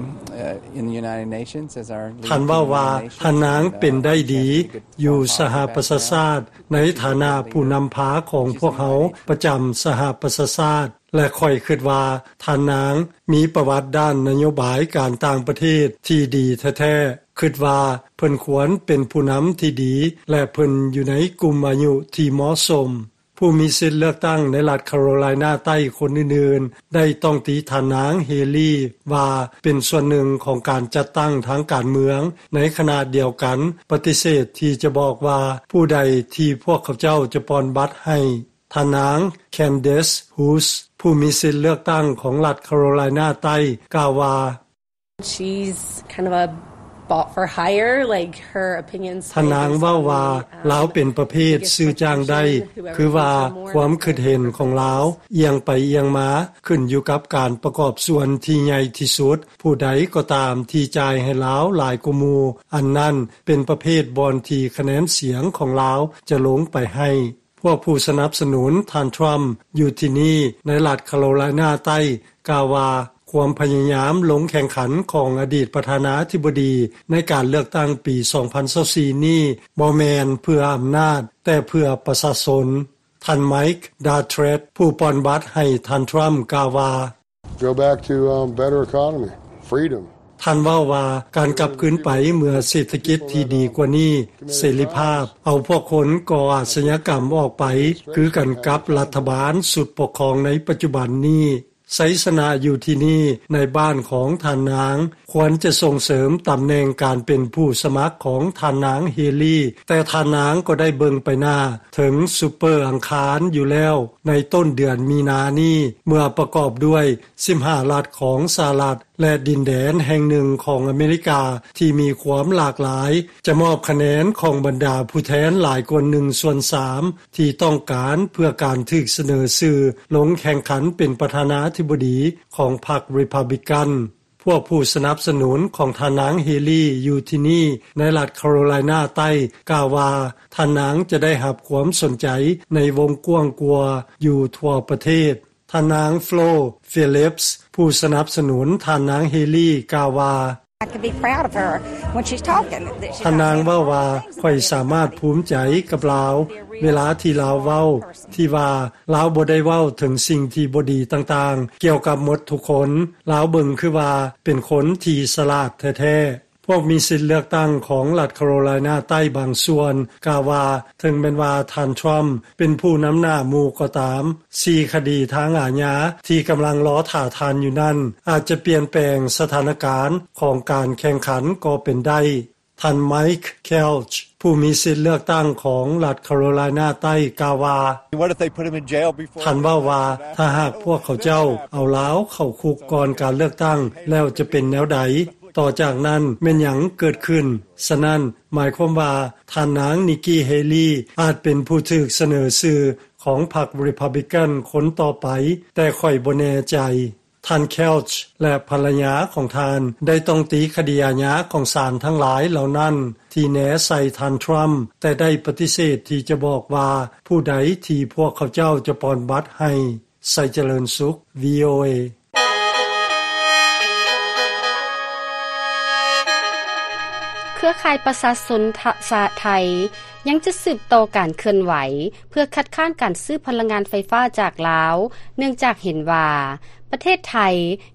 uh, in the United Nations as our lead ທ່ານເວົ້າວ່າ candidate in the nation. ທ່ານນາງເປັນໄດ້ດີ Uh, I think we could ຢູ່ form a ສະຫະ positive ປະຊາຊາດ background ໃນຖານະຜູ້ນຳພາຂອງພວກເຮົາປະຈຳສະຫະປະຊາຊາດ ແລະ ຂ້ອຍຄິດວ່າທ່ານນາງມີປະຫວັດດ້ານນະໂຍບາຍການຕ່າງປະເທດທີ່ດີແທ້ໆ. ຄິດວ່າເພິ່ນຄວນເປັນຜູ້ນຳທີ່ດີ ແລະ ເພິ່ນຢູ່ໃນກຸ່ມອາຍຸທີ່ເໝາະສົມ. ຜູ້ມີສິດເລືອກຕັ້ງໃນລັດຄາໂຣໄລນາໃຕ້ຄົນອື່ນໆ ໄດ້ຕ້ອງຕີທ່ານນາງເຮລີວ່າເປັນສ່ວນໜຶ່ງຂອງການຈັດຕັ້ງທາງການເມືອງ, ໃນຂະນະດຽວກັນປະຕິເສດທີ່ຈະບອກວ່າຜູ້ໃດທີ່ພວກເຂົາເຈົ້າຈະປ່ອນບັດໃຫ້. ທ່ານນາງ Candace House ຜູ້ມີສິດເລືອກຕັ້ງຂອງລັດຄາໂຣໄລນາໃຕ້ ກ່າວວ່າ She's kind of a bought for hire, like, her opinions ທ່ານນາງເວົ້າວ່າ ລາວເປັນປະເພດຊື້ຈ້າງໄດ້ ຄືວ່າຄວາມຄິດເຫັນຂອງລາວ ອຽງໄປອຽງມາ ຂຶ້ນຢູ່ກັບການປະກອບສ່ວນທີ່ໃຫຍ່ທີ່ສຸດ. ຜູ້ໃດກໍຕາມທີ່ຈ່າຍໃຫ້ລາວຫຼາຍກວ່າໝູ່ ອັນນັ້ນເປັນປະເພດບ່ອນທີ່ຄະແນນສຽງຂອງລາວຈະລົງໄປໃຫ້. ພວກຜູ້ສະໜັບສະໜູນທ່ານທຣຳຢູ່ທີ່ນີ້ ໃນລັດຄາໂຣໄລນາໃຕ້ ກ່າວວ່າຄວາມພະຍາຍາມລົງແຂ່ງຂັນຂອງອະດີດປະທານາທິບໍດີໃນການເລືອກຕັ້ງປີສອງພັນຊາວສີ່ນີ້ ບໍ່ແມ່ນເພື່ອອຳນາດ ແຕ່ເພື່ອປະຊາຊົນ. ທ່ານ Mike Dattred ຜູ້ປ່ອນບັດໃຫ້ທ່ານທຣຳ ກ່າວວ່າ Go back to, um, better economy, freedom. ທ່ານເວົ້າວ່າ ການກັບຄືນໄປເມື່ອເສດຖະກິດທີ່ດີກວ່ານີ້, ເສລີພາບ, ເອົາພວກຄົນກໍ່ອາຊະຍາກຳອອກໄປ ຄືກັນກັບລັດຖະບານຊຸດປົກຄອງໃນປັດຈຸບັນນີ້. ໄຊຊະນະຢູ່ທີ່ນີ້ ໃນບ້ານຂອງທ່ານນາງ ຄວນຈະສົ່ງເສີມຕຳແໜ່ງການເປັນຜູ້ສະໝັກຂອງທ່ານນາງເຮລີ, ແຕ່ທ່ານນາງກໍໄດ້ເບິ່ງໄປໜ້າເຖິງຊຸບເປີອັງຄານຢູ່ແລ້ວ ໃນຕົ້ນເດືອນມີນານີ້ ເມື່ອປະກອບດ້ວຍສິບຫ້າລັດຂອງສະຫະລັດ ແລະ ດິນແດນແຫ່ງໜຶ່ງຂອງອາເມລິກາທີ່ມີຄວາມຫຼາກຫຼາຍ ຈະມອບຄະແນນຂອງບັນດາຜູ້ແທນຫຼາຍກວ່າໜຶ່ງສ່ວນສາມ ທີ່ຕ້ອງການເພື່ອການຖືກສະເໜີຊື່ລົງແຂ່ງຂັນເປັນປະທານາທິບໍດີຂອງພັກ Republican. ພວກຜູ້ສະໜັບສະໜູນຂອງທ່ານນາງເຮລີຢູ່ທີ່ນີ້ ໃນລັດຄາໂຣໄລນາໃຕ້ ກ່າວວ່າ ທ່ານນາງຈະໄດ້ຮັບຄວາມສົນໃຈໃນວົງກວ້າງກວ່າຢູ່ທົ່ວປະເທດ. ທ່ານນາງ Flo Phillips ຜູ້ສະໜັບສະໜູນທ່ານນາງເຮລີ ກ່າວວ່າ I can be proud of her when she's talking. ທ່ານນາງເວົ້າວ່າ ຂ້ອຍສາມາດພູມໃຈກັບລາວ ເວລາທີ່ລາວເວົ້າ ທີ່ວ່າລາວບໍ່ໄດ້ເວົ້າເຖິງສິ່ງທີ່ບໍ່ດີຕ່າງໆ ກ່ຽວກັບໝົດທຸກຄົນ. ລາວເບິ່ງຄືວ່າເປັນຄົນທີ່ສະຫຼາດແທ້ໆ. ພວກມີສິດເລືອກຕັ້ງຂອງລັດຄາໂຣໄລນາໃຕ້ບາງສ່ວນ ກ່າວວ່າ ເຖິງແມ່ນວ່າທ່ານທຣຳເປັນຜູ້ນຳໜ້າໝູ່ກໍຕາມ, ສີ່ຄະດີທາງອາຍາທີ່ກຳລັງລໍຖ້າທ່ານຢູ່ນັ້ນ ອາດຈະປ່ຽນແປງສະຖານະການຂອງການແຂ່ງຂັນກໍເປັນໄດ້. ທ່ານ Mike Kelch ຜູ້ມີສິດເລືອກຕັ້ງຂອງລັດຄາໂຣໄລນາໃຕ້ ກ່າວວ່າ What if they put him in jail before ທ່ານເວົ້າວ່າ ຖ້າຫາກພວກເຂົາເຈົ້າເອົາລາວເຂົ້າຄຸກກ່ອນການເລືອກຕັ້ງ ແລ້ວຈະເປັນແນວໃດ? ຕໍ່ຈາກນັ້ນແມ່ນຫຍັງເກີດຂຶ້ນ? ສະນັ້ນ ໝາຍຄວາມວ່າ ທ່ານນາງ Nikki Haley ອາດເປັນຜູ້ຖືກສະເໜີຊື່ຂອງພັກ Republican ຄົນຕໍ່ໄປ, ແຕ່ຂ້ອຍບໍ່ແນ່ໃຈ. ທ່ານ Kelch ແລະ ພັນລະຍາຂອງທ່ານ ໄດ້ຕ້ອງຕີຄະດີອາຍາຂອງສານທັງຫຼາຍເຫຼົ່ານັ້ນ ທີ່ແນໃສ່ທ່ານ Trump, ແຕ່ໄດ້ປະຕິເສດທີ່ຈະບອກວ່າຜູ້ໃດທີ່ພວກເຂົາເຈົ້າຈະປ່ອນບັດໃຫ້. ໄຊຈະເລີນສຸກ VOA. ເຄືອຂ່າຍປະຊາຊົນຊາດໄທ ຍັງຈະສືບຕໍ່ການເຄື່ອນໄຫວ ເພື່ອຄັດຄ້ານການຊື້ພະລັງງານໄຟຟ້າຈາກລາວ ເນື່ອງຈາກເຫັນວ່າ ປະເທດໄທ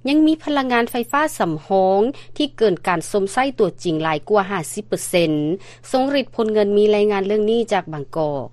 ຍັງມີພະລັງງານໄຟຟ້າສຳຮອງ ທີ່ເກີນການຊົມໃຊ້ຕົວຈິງຫຼາຍກວ່າຫ້າສິບເປີເຊັນ. ຊົງລິດ ພົນເງິນ ມີລາຍງານເລື່ອງນີ້ຈາກບາງກອກ.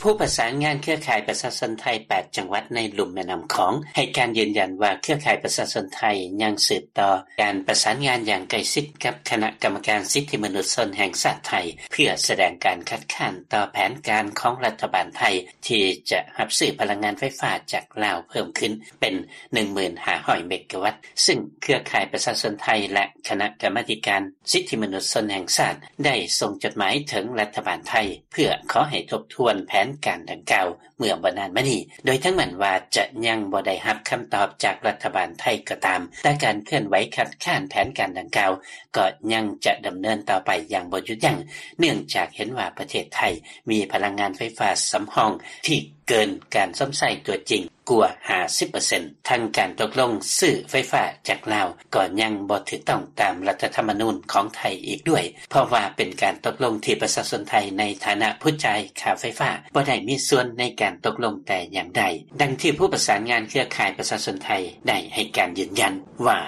ຜູ້ປະສານງານເຄືອຂ່າຍປະຊາຊົນໄທ ແປດ ຈັງຫວັດໃນລຸ່ມແມ່ນ້ຳຂອງ ໃຫ້ການຢືນຢັນວ່າ ເຄືອຂ່າຍປະຊາຊົນໄທ ຍັງສືບຕໍ່ການປະສານງານຢ່າງໃກ້ຊິດກັບຄະນະກຳມະການສິດທິມະນຸດຊົນແຫ່ງຊາດໄທ ເພື່ອສະແດງການຄັດຄ້ານຕໍ່ແຜນການຂອງລັດຖະບານໄທ ທີ່ຈະຮັບຊື້ພະລັງງານໄຟຟ້າຈາກລາວເພີ່ມຂຶ້ນເປັນ ໜຶ່ງໝື່ນຫ້າຮ້ອຍ ເມກາວັດ ຊຶ່ງເຄືອຂ່າຍປະຊາຊົນໄທ ແລະ ຄະນະກຳມາທິການສິດທິມະນຸດຊົນແຫ່ງຊາດ ໄດ້ສົ່ງຈົດໝາຍເຖິງລັດຖະບານໄທ ເພື່ອຂໍໃຫ້ທົບທວນແຜນການດັ່ງກ່າວ ເມື່ອບໍ່ນານມານີ້ ໂດຍເຖິງແມ່ນວ່າຈະຍັງບໍ່ໄດ້ຮັບຄຳຕອບຈາກລັດຖະບານໄທກໍຕາມ, ແຕ່ການເຄື່ອນໄຫວຄັດຄ້ານແຜນການດັ່ງກ່າວ ກໍຍັງຈະດຳເນີນຕໍ່ໄປຢ່າງບໍ່ຢຸດຢັ້ງ ເນື່ອງຈາກເຫັນວ່າປະເທດໄທມີພະລັງງານໄຟຟ້າສຳຮອງທີ່ເກີນການຊົມໃຊ້ຕົວຈິງກວ່າຫ້າສິບເປີເຊັນ. ທັງການຕົກລົງຊື້ໄຟຟ້າຈາກລາວ ກໍຍັງບໍ່ຖືກຕ້ອງຕາມລັດຖະທຳມະນູນຂອງໄທອີກດ້ວຍ, ເພາະວ່າເປັນການຕົກລົງທີ່ປະຊາຊົນໄທໃນຖານະຜູ້ຈ່າຍຄ່າໄຟຟ້າ ບໍ່ໄດ້ມີສ່ວນໃນການຕົກລົງແຕ່ຢ່າງໃດ, ດັ່ງທີ່ຜູ້ປະສານງານເຄືອຂ່າຍປະຊາຊົນໄທໄດ້ໃຫ້ການຢືນຢັນວ່າ: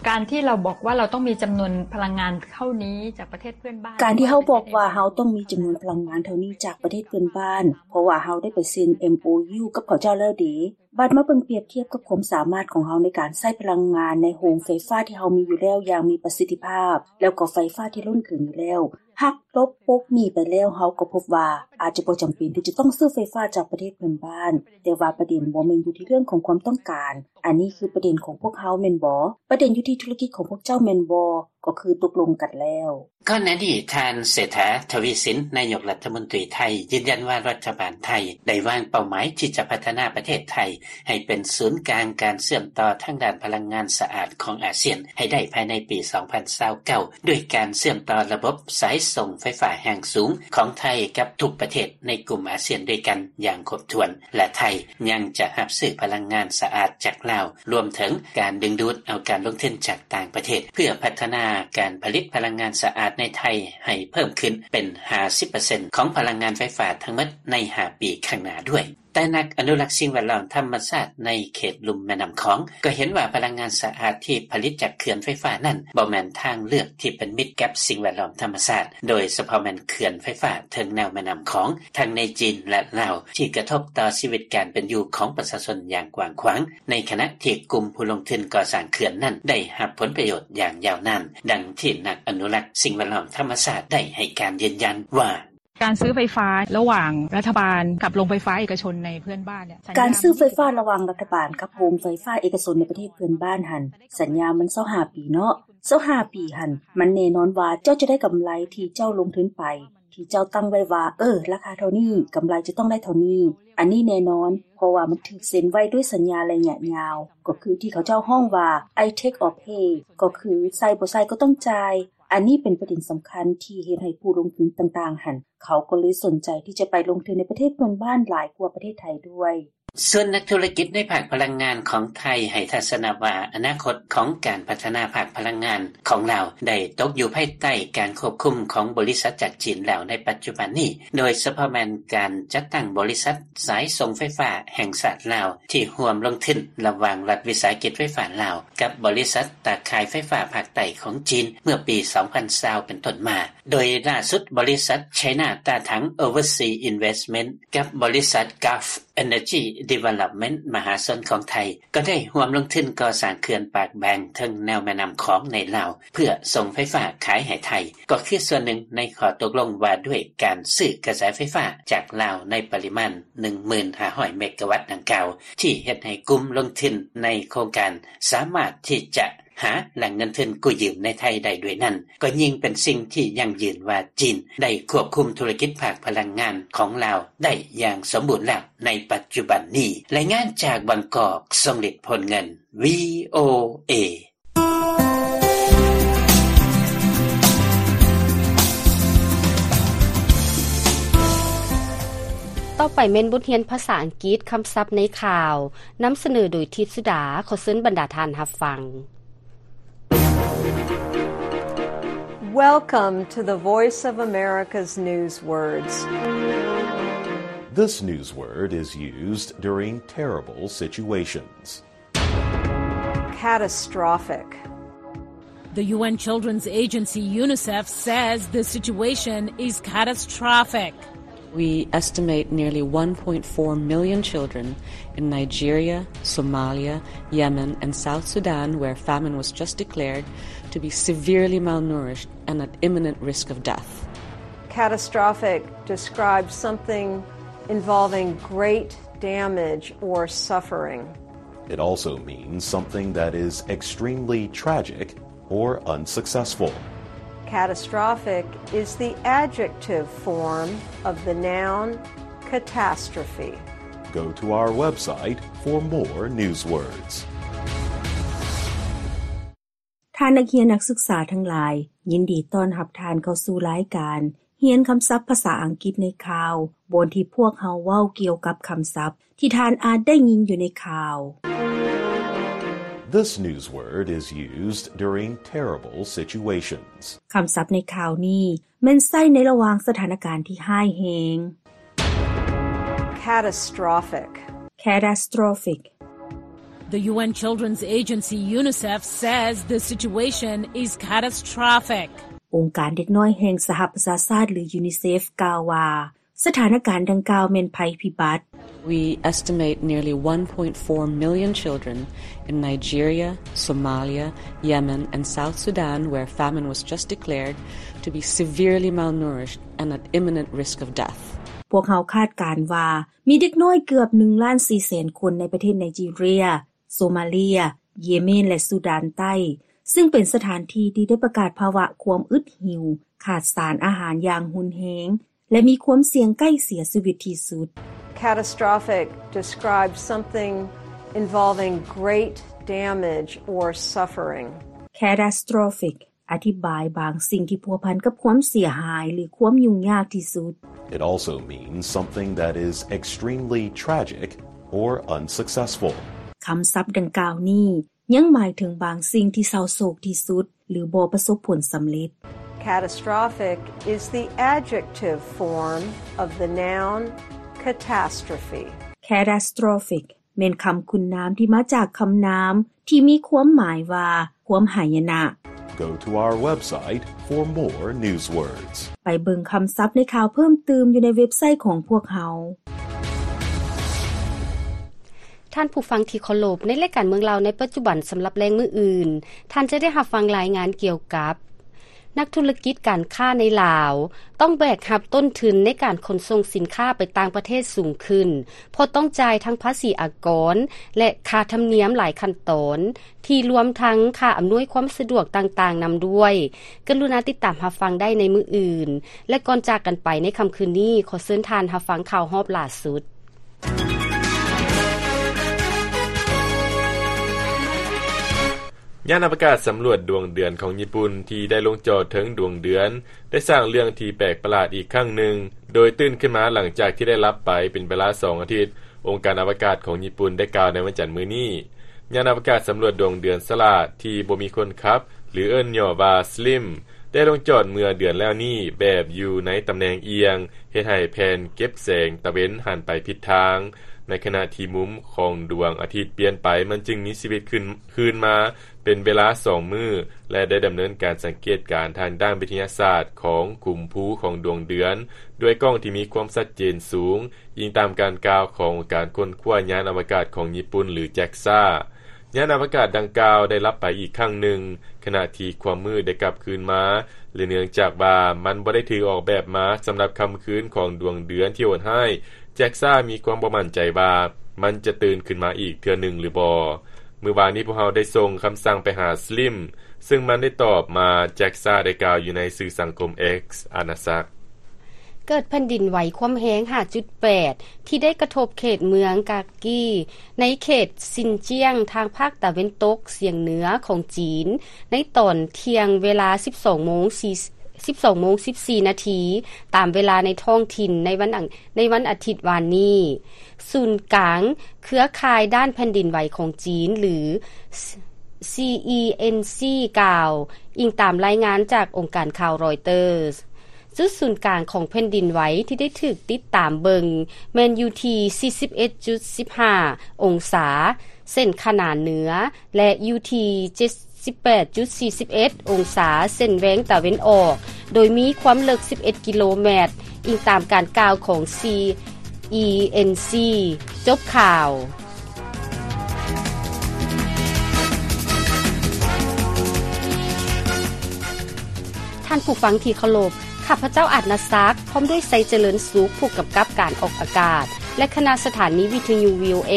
ການທີ່ເຮົາບອກວ່າເຮົາຕ້ອງມີຈຳນວນພະລັງງານເທົ່ານີ້ຈາກປະເທດເພື່ອນບ້ານ ການທີ່ເຮົາບອກວ່າເຮົາຕ້ອງມີຈຳນວນພະລັງງານເທົ່ານີ້ຈາກປະເທດເພື່ອນບ້ານ ເພາະວ່າເຮົາໄດ້ໄປເຊັນ ເອັມໂອຢູ ກັບເຂົາເຈົ້າແລ້ວເດ. ບາດມາເບິ່ງປຽບທຽບກັບຄວາມສາມາດຂອງເຮົາໃນການໃຊ້ພະລັງງານໃນໂຮງໄຟຟ້າທີ່ເຮົາມີຢູ່ແລ້ວຢ່າງມີປະສິດທິພາບ ແລ້ວກໍໄຟຟ້າທີ່ລົ້ນເກີນຢູ່ແລ້ວ ຫັກລົບປົກໜີໄປແລ້ວ ເຮົາກໍພົບວ່າອາດຈະບໍ່ຈຳເປັນທີ່ຈະຕ້ອງຊື້ໄຟຟ້າຈາກປະເທດເພື່ອນບ້ານ. ແຕ່ວ່າປະເດັນບໍ່ແມ່ນຢູ່ທີ່ເລື່ອງຂອງຄວາມຕ້ອງການ. ອັນນີ້ຄືປະເດັນຂອງພວກເຮົາແມ່ນບໍ່? ປະເດັນຢູ່ທີ່ທຸລະກິດຂອງພວກເຈົ້າແມ່ນບໍ່? ກໍຄືຕົກລົງກັນແລ້ວ. ກ່ອນໜ້ານີ້ ທ່ານ ເສດຖາ ທະວີສິນ ນາຍົກລັດຖະມົນຕີໄທ ຢືນຢັນວ່າລັດຖະບານໄທໄດ້ວາງເປົ້າໝາຍທີ່ຈະພັດທະນາປະເທດໄທ ໃຫ້ເປັນສູນກາງການເຊື່ອມຕໍ່ທາງດ້ານພະລັງງານສະອາດຂອງອາຊຽນໃຫ້ໄດ້ພາຍໃນປີສອງພັນຊາວເກົ້າ ດ້ວຍການເຊື່ອມຕໍ່ລະບົບສາຍສົ່ງໄຟຟ້າແຮງສູງຂອງໄທກັບທຸກປະເທດໃນກຸ່ມອາຊຽນດ້ວຍກັນຢ່າງຄົບຖ້ວນ ແລະ ໄທຍັງຈະຮັບຊື້ພະລັງງານສະອາດຈາກລາວ ລວມເຖິງການດຶງດູດເອົາການລົງທຶນຈາກຕ່າງປະເທດ ເພື່ອພັດທະນາການຜະລິດພະລັງງານສະອາດໃນໄທໃຫ້ເພີ່ມຂຶ້ນເປັນຫ້າສິບເປີເຊັນຂອງພະລັງງານໄຟຟ້າທັງໝົດໃນຫ້າປີຂ້າງໜ້າດ້ວຍ. ແຕ່ນັກອະນຸລັກສິ່ງແວດລ້ອມທຳມະຊາດໃນເຂດລຸ່ມແມ່ນ້ຳຂອງ ກໍເຫັນວ່າພະລັງງານສະອາດທີ່ຜະລິດຈາກເຂື່ອນໄຟຟ້ານັ້ນ ບໍ່ແມ່ນທາງເລືອກທີ່ເປັນມິດກັບສິ່ງແວດລ້ອມທຳມະຊາດ, ໂດຍສະເພາະແມ່ນເຂື່ອນໄຟຟ້າເທິງແນວແມ່ນ້ຳຂອງ ທັງໃນຈີນ ແລະ ລາວ ທີ່ກະທົບຕໍ່ຊີວິດການເປັນຢູ່ຂອງປະຊາຊົນຢ່າງກວ້າງຂວາງ, ໃນຂະນະທີ່ກຸ່ມຜູ້ລົງທຶນກໍ່ສ້າງເຂື່ອນນັ້ນໄດ້ຮັບຜົນປະໂຫຍດຢ່າງຍາວນານ, ດັ່ງທີ່ນັກອະນຸລັກສິ່ງແວດລ້ອມທຳມະຊາດໄດ້ໃຫ້ການຢືນຢັນວ່າ ການຊື້ໄຟຟ້າລະຫວ່າງລັດຖະບານກັບໂຮງໄຟຟ້າເອກະຊົນໃນເພື່ອນບ້ານເນ່ຍ ການຊື້ໄຟຟ້າລະຫວ່າງລັດຖະບານກັບໂຮງໄຟຟ້າເອກະຊົນໃນປະເທດເພື່ອນບ້ານຫັ້ນ ສັນຍາມັນຊາວຫ້າປີເນາະ, ຊາວຫ້າປີຫັ້ນ ມັນແນ່ນອນວ່າເຈົ້າຈະໄດ້ກຳໄລທີ່ເຈົ້າລົງທຶນໄປ ທີ່ເຈົ້າຕັ້ງໄວ້ວ່າ ເອີ ລາຄາເທົ່ານີ້ ກຳໄລຈະຕ້ອງໄດ້ເທົ່ານີ້. ອັນນີ້ແນ່ນອນ ເພາະວ່າມັນຖືກເຊັນໄວ້ດ້ວຍສັນຍາໄລຍະຍາວ, ກໍຄືທີ່ເຂົາເຈົ້າຮ້ອງວ່າ I take or pay ກໍຄືໃສ່ບໍ່ໃສ່ກໍຕ້ອງຈ່າຍ. ອັນນີ້ເປັນປະເດັນສຳຄັນທີ່ເຮັດໃຫ້ຜູ້ລົງທຶນຕ່າງໆຫັ້ນ ເຂົາກໍເລີຍສົນໃຈທີ່ຈະໄປລົງທຶນໃນປະເທດເພື່ອນບ້ານຫຼາຍກວ່າປະເທດໄທດ້ວຍ. ສ່ວນນັກທຸລະກິດໃນພາກພະລັງງານຂອງໄທໃຫ້ທັດສະນະວ່າ ອະນາຄົດຂອງການພັດທະນາພາກພະລັງງານຂອງລາວໄດ້ຕົກຢູ່ພາຍໃຕ້ການຄວບຄຸມຂອງບໍລິສັດຈາກຈີນແລ້ວໃນປັດຈຸບັນນີ້, ໂດຍສະເພາະແມ່ນການຈັດຕັ້ງບໍລິສັດສາຍສົ່ງໄຟຟ້າແຫ່ງຊາດລາວ ທີ່ຮ່ວມລົງທຶນລະຫວ່າງລັດວິສາຫະກິດໄຟຟ້າລາວກັບບໍລິສັດຕາຂ່າຍໄຟຟ້າພາກໃຕ້ຂອງຈີນເມື່ອປີສອງພັນຊາວເປັນຕົ້ນມາ. ໂດຍລ່າສຸດບໍລິສັດ China Datang Overseas Investment ກັບບໍລິສັດ Gulf Energy Development ມະຫາຊົນຂອງໄທ ກໍໄດ້ຮ່ວມລົງທຶນກໍ່ສ້າງເຂື່ອນປາກແບງເທິງແນວແມ່ນ້ຳຂອງໃນລາວ ເພື່ອສົ່ງໄຟຟ້າຂາຍໃຫ້ໄທ ກໍຄືສ່ວນໜຶ່ງໃນຂໍ້ຕົກລົງວ່າດ້ວຍການຊື້ກະແສໄຟຟ້າຈາກລາວໃນປະລິມານໜຶ່ງໝື່ນຫ້າຮ້ອຍເມກາວັດດັ່ງກ່າວ ທີ່ເຮັດໃຫ້ກຸ່ມລົງທຶນໃນໂຄງການສາມາດທີ່ຈະ ຫາແຫຼ່ງເງິນທຶນກູ້ຢືມໃນໄທໄດ້ດ້ວຍນັ້ນ ກໍຍິ່ງເປັນສິ່ງທີ່ຢັ້ງຢືນວ່າຈີນໄດ້ຄວບຄຸມທຸລະກິດພາກພະລັງງານຂອງລາວໄດ້ຢ່າງສົມບູນແລ້ວໃນປັດຈຸບັນນີ້. ລາຍງານຈາກບາງກອກ ຊົງລິດ ໂພນເງິນ ວີໂອເອ. ຕໍ່ໄປແມ່ນບົດຮຽນພາສາອັງກິດ ຄຳສັບໃນຂ່າວ, ນຳສະເໜີໂດຍ ທິດສຸດາ. ຂໍເຊີນບັນດາທ່ານຮັບຟັງ. Welcome to the Voice of America's News Words. This news word is used during terrible situations. Catastrophic. The U N Children's Agency, UNICEF, says the situation is catastrophic. We estimate nearly one point four million children in Nigeria, Somalia, Yemen, and South Sudan, where famine was just declared, to be severely malnourished and at imminent risk of death. Catastrophic describes something involving great damage or suffering. It also means something that is extremely tragic or unsuccessful. Catastrophic is the adjective form of the noun catastrophe. Go to our website for more news words. ທ່ານນັກຮຽນນັກສຶກສາທັງຫຼາຍ, ຍິນດີຕ້ອນຮັບທ່ານເຂົ້າສູ່ລາຍການຮຽນຄຳສັບພາສາອັງກິດໃນຂ່າວ, ບ່ອນທີ່ພວກເຮົາເວົ້າກ່ຽວກັບຄຳສັບ ທີ່ທ່ານອາດໄດ້ຍິນຢູ່ໃນຂ່າວ. This news word is used during terrible situations. ຄຳສັບໃນຂ່າວນີ້ແມ່ນໃຊ້ໃນລະຫວ່າງສະຖານະການທີ່ຮ້າຍແຮງ. Catastrophic. Catastrophic. The UN Children's Agency UNICEF says the situation is catastrophic. ອົງການເດັກນ້ອຍແຫ່ງສະຫະປະຊາຊາດ ຫຼື UNICEF ກ່າວວ່າ ສະຖານະການດັ່ງກ່າວແມ່ນໄພພິບັດ. We estimate nearly one point four million children in Nigeria, Somalia, Yemen, and South Sudan, where famine was just declared, to be severely malnourished and at imminent risk of death. ພວກເຮົາຄາດການວ່າມີເດັກນ້ອຍເກືອບໜຶ່ງລ້ານສີ່ແສນຄົນໃນປະເທດໄນຈີເຣຍ, ໂຊມາເລຍ, ເຢເມນ ແລະ ຊູດານໃຕ້, ຊຶ່ງເປັນສະຖານທີ່ທີ່ໄດ້ປະກາດພາວະຄວາມອຶດຫິວ, ຂາດສານອາຫານຢ່າງຮຸນແຮງ ແລະ ມີຄວາມສ່ຽງໃກ້ເສຍຊີວິດທີ່ສຸດ. Catastrophic describes something involving great damage or suffering. Catastrophic ອະທິບາຍບາງສິ່ງທີ່ພົວພັນກັບຄວາມເສຍຫາຍ ຫຼື ຄວາມຫຍຸ້ງຍາກທີ່ສຸດ. It also means something that is extremely tragic or unsuccessful. ຄຳສັບດັ່ງກ່າວນີ້ ຍັງໝາຍເຖິງບາງສິ່ງທີ່ເສົ້າໂສກທີ່ສຸດ ຫຼື ບໍ່ປະສົບຜົນສຳເລັດ. Catastrophic is the adjective form of the noun catastrophe. Catastrophic ແມ່ນຄຳຄຸນນາມທີ່ມາຈາກຄຳນາມທີ່ມີຄວາມໝາຍວ່າ ຄວາມຫາຍະນະ. Go to our website for more news words. ໄປເບິ່ງຄຳສັບໃນຂ່າວເພີ່ມຕື່ມຢູ່ໃນເວັບໄຊຂອງພວກເຮົາ. ທ່ານຜູ້ຟັງທີ່ເຄົາລົບ, ໃນລາຍການເມືອງລາວໃນປັດຈຸບັນສຳລັບແລງມື້ອື່ນ, ທ່ານຈະໄດ້ຮັບຟັງລາຍງານກ່ຽວກັບ ນັກທຸລະກິດການຄ້າໃນລາວ ຕ້ອງແບກຮັບຕົ້ນທຶນໃນການຂົນສົ່ງສິນຄ້າໄປຕ່າງປະເທດສູງຂຶ້ນ ເພາະຕ້ອງຈ່າຍທັງພາສີອາກອນ ແລະ ຄ່າທຳນຽມຫຼາຍຂັ້ນຕອນ ທີ່ລວມທັງຄ່າອຳນວຍຄວາມສະດວກຕ່າງໆນຳດ້ວຍ. ກະລຸນາຕິດຕາມຮັບຟັງໄດ້ໃນມື້ອື່ນ ແລະ ກ່ອນຈາກກັນໄປໃນຄ່ຳຄືນນີ້, ຂໍເຊີນທ່ານຮັບຟັງຂ່າວຮອບຫຼ້າສຸດ. ຍານອະວະກາດສຳຫຼວດດວງເດືອນຂອງຍີ່ປຸ່ນທີ່ໄດ້ລົງຈອດເທິງດວງເດືອນ ໄດ້ສ້າງເລື່ອງທີ່ແປກປະຫຼາດອີກຄັ້ງໜຶ່ງ, ໂດຍຕື່ນຂຶ້ນມາຫຼັງຈາກທີ່ໄດ້ຫຼັບໄປເປັນເວລາສອງອາທິດ, ອົງການອະວະກາດຂອງຍີ່ປຸ່ນໄດ້ກ່າວໃນວັນຈັນມື້ນີ້. ຍານອະວະກາດສຳຫຼວດດວງເດືອນສະຫຼາດທີ່ບໍ່ມີຄົນຂັບ ຫຼື ເອີ້ນຫຍໍ້ວ່າ SLIM ໄດ້ລົງຈອດເມື່ອເດືອນແລ້ວນີ້ ແບບຢູ່ໃນຕຳແໜ່ງອຽງ, ເຮັດໃຫ້ແຜ່ນເກັບແສງຕາເວັນຫັນໄປຜິດທາງ. ໃນຂະນະທີ່ມຸມຂອງດວງອາທິດປ່ຽນໄປ, ມັນຈຶ່ງມີຊີວິດຂຶ້ນ ຄືນມາເປັນເວລາສອງມື້ ແລະ ໄດ້ດຳເນີນການສັງເກດການທາງດ້ານວິທະຍາສາດຂອງຂຸມພູຂອງດວງເດືອນ ດ້ວຍກ້ອງທີ່ມີຄວາມຊັດເຈນສູງ, ອີງຕາມການກ່າວຂອງອົງການຄົ້ນຄວ້າຍານອະວະກາດຂອງຍີ່ປຸ່ນ ຫຼື JAXA. ຍານອະວະກາດດັ່ງກ່າວໄດ້ຫຼັບໄປອີກຄັ້ງໜຶ່ງ, ຂະນະທີ່ຄວາມມືດໄດ້ກັບຄືນມາ ແລະ ເນື່ອງຈາກວ່າມັນບໍ່ໄດ້ຖືກອອກແບບມາສຳລັບຄ່ຳຄືນຂອງດວງເດືອນທີ່ໂຫດຮ້າຍ, JAXA ມີຄວາມບໍ່ໝັ້ນໃຈວ່າມັນຈະຕື່ນຂຶ້ນມາອີກເທື່ອໜຶ່ງຫຼືບໍ່. ມື້ວານນີ້ພວກເຮົາໄດ້ສົ່ງຄຳສັ່ງໄປຫາ SLIM ຊຶ່ງມັນໄດ້ຕອບມາ, JAXA ໄດ້ກ່າວຢູ່ໃນສື່ສັງຄົມ X ອານາສັກ. ເກີດແຜ່ນດິນໄຫວຄວາມແຮງ ຫ້າຈຸດແປດ ທີ່ໄດ້ກະທົບເຂດເມືອງກາກີ ໃນເຂດຊິນຈຽງ ທາງພາກຕາເວັນຕົກສຽງເໜືອຂອງຈີນ ໃນຕອນທ່ຽງເວລາ ສິບສອງໂມງ ສິບສອງໂມງ ສິບສີ່ນາທີ ຕາມເວລາໃນທ້ອງຖິ່ນ ໃນວັນອັງ ໃນວັນອາທິດວານນີ້. ສູນກາງເຄືອຂ່າຍດ້ານແຜ່ນດິນໄຫວຂອງຈີນ ຫຼື CENC ກ່າວ, ອີງຕາມລາຍງານຈາກອົງການຂ່າວ Reuters. ຈຸດສູນກາງຂອງແຜ່ນດິນໄຫວທີ່ໄດ້ຖືກຕິດຕາມເບິ່ງແມ່ນຢູ່ທີ່ ສີ່ສິບເອັດຈຸດສິບຫ້າ ອົງສາ ເສັ້ນຂະໜານເໜືອ ແລະ ຢູ່ທີ່ ເຈັດສິບແປດຈຸດສີ່ສິບເອັດ ອົງສາ ເສັ້ນແຫວງຕາເວັນອອກ, ໂດຍມີຄວາມເລິກ ສິບເອັດກິໂລແມັດ, ອີງຕາມການກ່າວຂອງ CENC. ຈົບຂ່າວ. ທ່ານຜູ້ຟັງທີ່ເຄົາລົບ, ຂ້າພະເຈົ້າ ອາດນາສັກ ພ້ອມດ້ວຍ ໄຊຈະເລີນສຸກ ຜູ້ກຳກັບການອອກອາກາດ ແລະ ຄະນະສະຖານີວິທະຍຸ VOA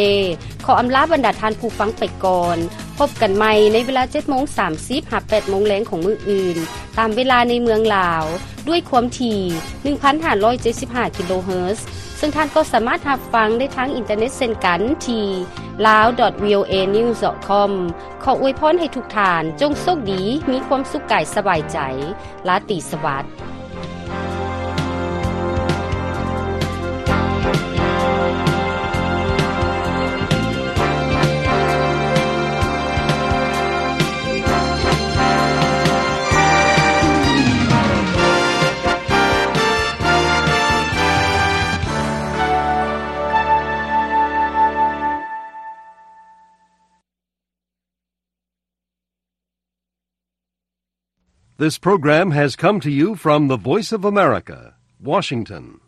ຂໍອຳລາບັນດາທ່ານຜູ້ຟັງໄປກ່ອນ. ພົບກັນໃໝ່ໃນເວລາ ເຈັດໂມງສາມສິບ ຫາ ແປດໂມງແລງຂອງມື້ອື່ນ, ຕາມເວລາໃນເມືອງລາວ, ດ້ວຍຄວາມຖີ່ ໜຶ່ງພັນຫ້າຮ້ອຍເຈັດສິບຫ້າ ກິໂລເຮີດ, ເຊິ່ງທ່ານກໍສາມາດຮັບຟັງໄດ້ທາງອິນເຕີເນັດເຊັ່ນກັນທີ່ lawdotvoanews.com. ຂໍອວຍພອນໃຫ້ທຸກທ່ານຈົ່ງໂຊກດີ, ມີຄວາມສຸກກາຍສະບາຍໃຈ. ລາຕີສະຫວັດ. This program has come to you from the Voice of America, Washington.